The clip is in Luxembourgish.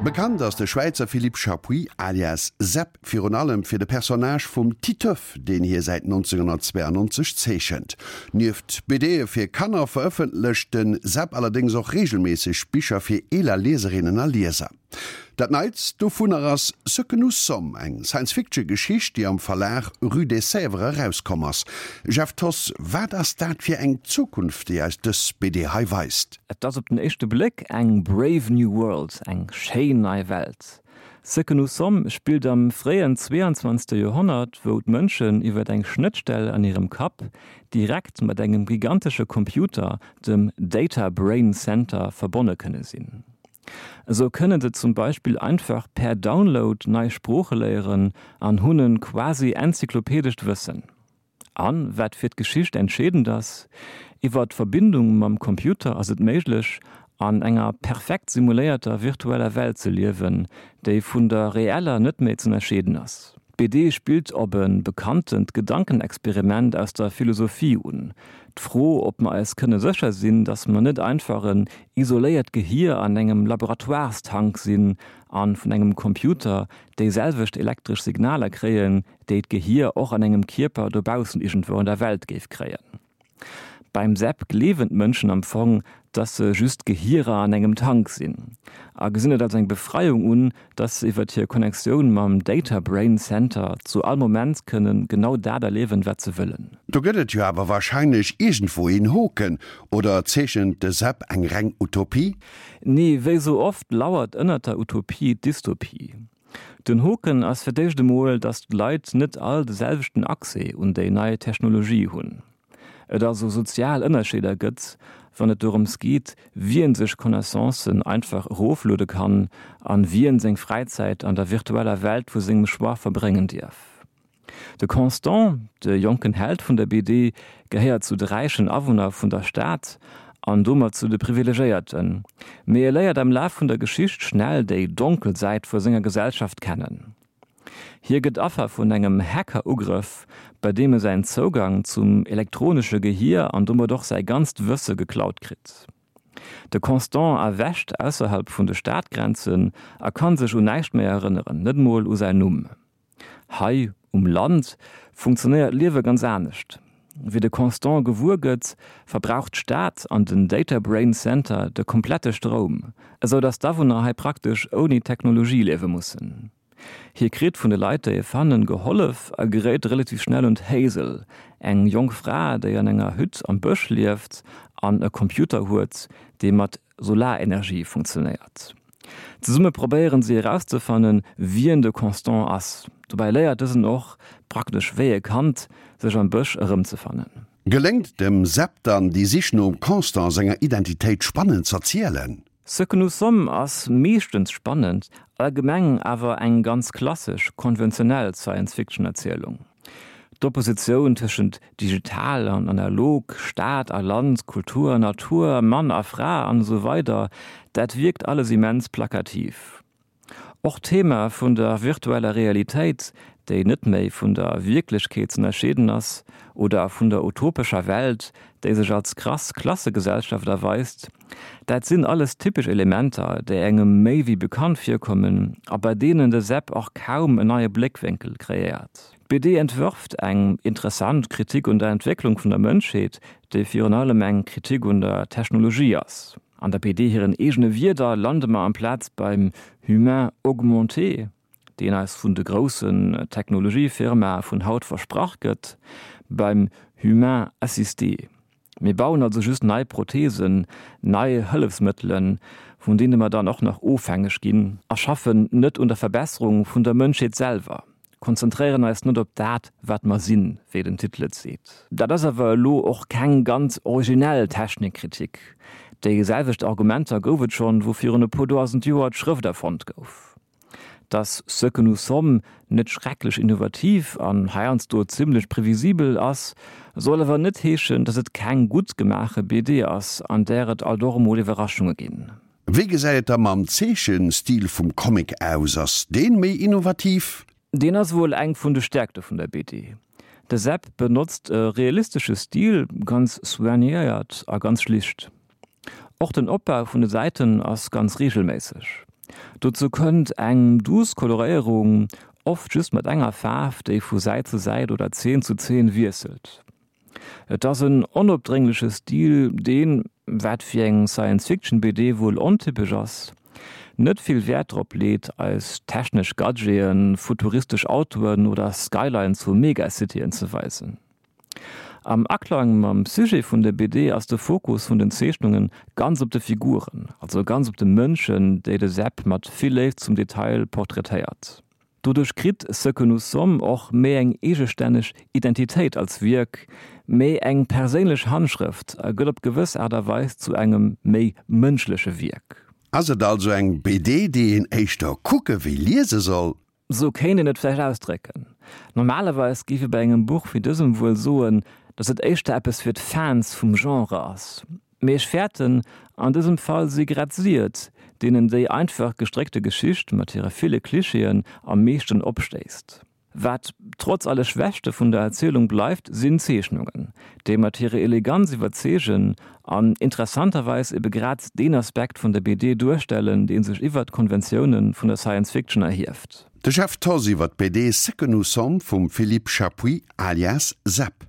Bekannt ass de Schwäizer Philippe Chappuis alias Sepp virun allem fir de Personnage vum Titeuf, deen hie säit 1992 zeechent. Nieft BDe fir Kanner verëffentlecht de Sepp allerdéngs och reegelméisseg Bicher fir eeler Lieserinnen a Lieser. Dat neitst dovunner ass Ce que nous sommes, eng Science-Fiction-Geschicht, déi am Verlag Rue des Sèvres erauskomm ass. Jeff Thoss, wat ass dat fir eng Zukunft, déi eis dës BD hei weist? Et ass op den éischte Bléck eng brave new world, eng schéin nei Welt. Ce que nous sommes spillt am fréien 22. Joerhonnert, wou d'Mënschen iwwer eng Schnëttstell an hirem Kapp direkt mat engem gigantesche Computer, dem Data Brain Center, verbonne kënne sinn. Esou kënne se zum Beispill einfach per Download nei Sprooche léieren an hunn e quasi enzyklopädescht Wëssen. An, wat fir d'Geschicht entscheedend ass, iwwer d'Verbindung mam Computer ass et méiglech, an enger perfekt simuléierter virtueller Welt ze liewen, déi vun der reeller net méi z'ënnerscheeden ass. D'BD spillt op e bekanntent Gedankenexperiment aus der Philosophie un, d'Fro, ob mer eis kënne sécher sinn, datt mer net einfach en isoléiert Gehier an engem Laboratoirestank sinn a vun engem Computer déi selwecht elektresch Signaler kréien, déi d'Gehier och an engem Kierper dobaussen iergendwou an der Welt géif kréien. Beim Sepp gleewen d'Mënschen am Fong, dass se just Gehierer an engem Tank sinn a gesinn et als eng Befreiung un, dass se iwwert hir Connectioun mam Data Brain Center zu all Moment kënnen genau dat erliewen, wat se wëllen. Do gëtt et jo awer warscheinlech iergendwou een Hoken, oder zeechent de Sepp eng reng Utopie? Nee, wéi sou oft lauert ënnert der Utopie d'Dystopie. Den Hoken ass fir d'éischt emol, datt d'Leit net all de selwechten Accès un déi nei Technologie hunn. Et also sozial Ënnerscheeder gëtt, wann et dorëms geet, wien sech Connaissancen einfach erofluede kann an wien seng Fräizäit an der virtueller Welt vu sengem Choix verbréngen dierf. De Constant, de jonken Held vun der BD, gehéiert zu de räichen Awunner vun der Stad an domat zu de Privilegéierten, mee e léiert am Laf vun der Geschicht schnell déi donkel Säit vu senger Gesellschaft kennen. Hie gëtt Affer vun engem Hacker-Ugrëff, bei deem e säin Zougang zum elektronesche Gehier an domat och säi ganzt Wësse geklaut kritt. De Constant erwächt ausserhalb vun de Stadgrenzen a kann sech un näischt méi erënneren, net mol u säin Numm. Hei um Land funktionéiert d'Liewe ganz anescht. Wéi de Constant gewuer gëtt, verbraucht d'Stad an den Data Brain Center de komplette Stroum, esou datt d'Awunner hei praktesch ouni Technologie liewe mussen. Hie kritt vun de Leit, déi e fannen, gehollef a geréit relativ schnell un d'Hazel, eng jonk Fra, déi an enger Hütt am Bësch lieft an e Computer huet, dee mat Solarenergie funktionéiert. Zesumme probéieren si erauszefannen, wien de Constant ass. Dobäi léiert dësen och, praktesch wéi e Kand, sech am Bësch erëmzefannen. Geléngt dem Sepp dann déi Sich nom Constant senger Identitéit spannend z'erzielen? Ce que nous sommes ass meeschtens spannend, allgemeng awer eng ganz klassesch, konventionell Science-Fiction-Erzielung. D'Oppositioun tëschent digital an analog, Stad a Land, Kultur an Natur, Mann a Fra an esou weider, dat wierkt alles immens plakativ. Och d'Thema vun der virtueller Realitéit, déi net méi vun der Wierklechkeet z'ënnerscheeden ass, oder vun der utopescher Welt, déi sech als krass Klassegesellschaft erweist, Dat sinn alles typesch Elementer, déi engem méi wéi bekannt virkommen a bei deenen de Sepp och kaum en neie Bléckwénkel kreéiert. D'BD entwërft eng interessant Kritik un der Entwécklung vun der Mënschheet, déi virun allem eng Kritik un der Technologie ass. An der BD hiren eegene Wierder lande mer amplaz beim Humain augmenté, deen eis vun de groussen Technologiefirmae vun haut versprach gëtt, beim Humain assisté. Mir bauen also just nei Prothesen, nei Hëllefsmëttelen, vun deene mer dann och nach ofhängeg ginn, a schaffen net un der Verbesserung vun der Mënschheet selwer, konzentréieren eis net op dat, wat mer sinn, wéi den Titel et seet. Dat ass awer elo och keng ganz originell Technikkritik. Déi selwecht Argumenter gouf et schonn, wou virun e puer dausend Joer d'Schrëft erfonnt gouf. Dass Ce que nous sommes net schrecklech innovativ an heiansdo zimmlech previsibel ass, soll awer net heeschen, dass et keng gutt gemaache BD ass, an där et alt och emol Iwwerraschunge ginn. Wéi gesäit et da mam Zeechenstil vum Comic aus? Ass deen méi innovativ? Deen ass wuel eng vun de Stäerkte vun der BD. De Seb benotzt e realistesche Stil, ganz soignéiert a ganz schlicht. Och den Opbau vun de Säiten ass ganz reegelméisseg. Dozou kënnt eng duuss Koloréierung, oft just mat enger Faarf, déi vu Säit zu Säit oder Zeen zu Zeen wiesselt. Et ass en onopdréngleche Stil, deen, wat fir eng Science-Fiction-BD wuel ontypesch ass, net vill Wäert drop leet, eis technesch Gadgeten, futuristesch Autoen oder Skylines vu Megacityen ze weisen. Am Aklang mam Sujet vun der BD ass de Fokus vun den Zeechnunge ganz op de Figuren, also ganz op de Mënschen, déi de Seb mat vill Léift zum Detail portraitéiert. Doduerch kritt Ce que nous sommes och méi eng eegestänneg Identitéit als Wierk, méi eng perséinlech Handschrëft a gëtt op gewëss Aart a Weis zu engem méi mënschleche Wierk. Ass et also eng BD, déi een éischter kucke wéi liese soll? Sou kéint een et vläicht ausdrécken. Normalerweis géif ee bei engem Buch wéi dësem wuel soen, datt et éischter eppes fir d'Fans vum Genre ass. Mee ech fäerten, an dësem Fall si grad si et, deenen déi einfach gestréckte Geschicht mat hire ville Klischeeën am meeschten opstéisst. Wat trotz alle Schwächte vun der Erzielung bleift, sinn d'Zeechnungen, déi mat hirer Eleganz iwwerzeegen an interessanterweis ebe grad deen Aspekt vun der BD duerstellen, dee sech iwwert d'Konventioune vun der Science Fiction erhieft. De Jeff Thoss iwwer d'BD Ce que nous sommes vum Philippe Chappuis alias Zep.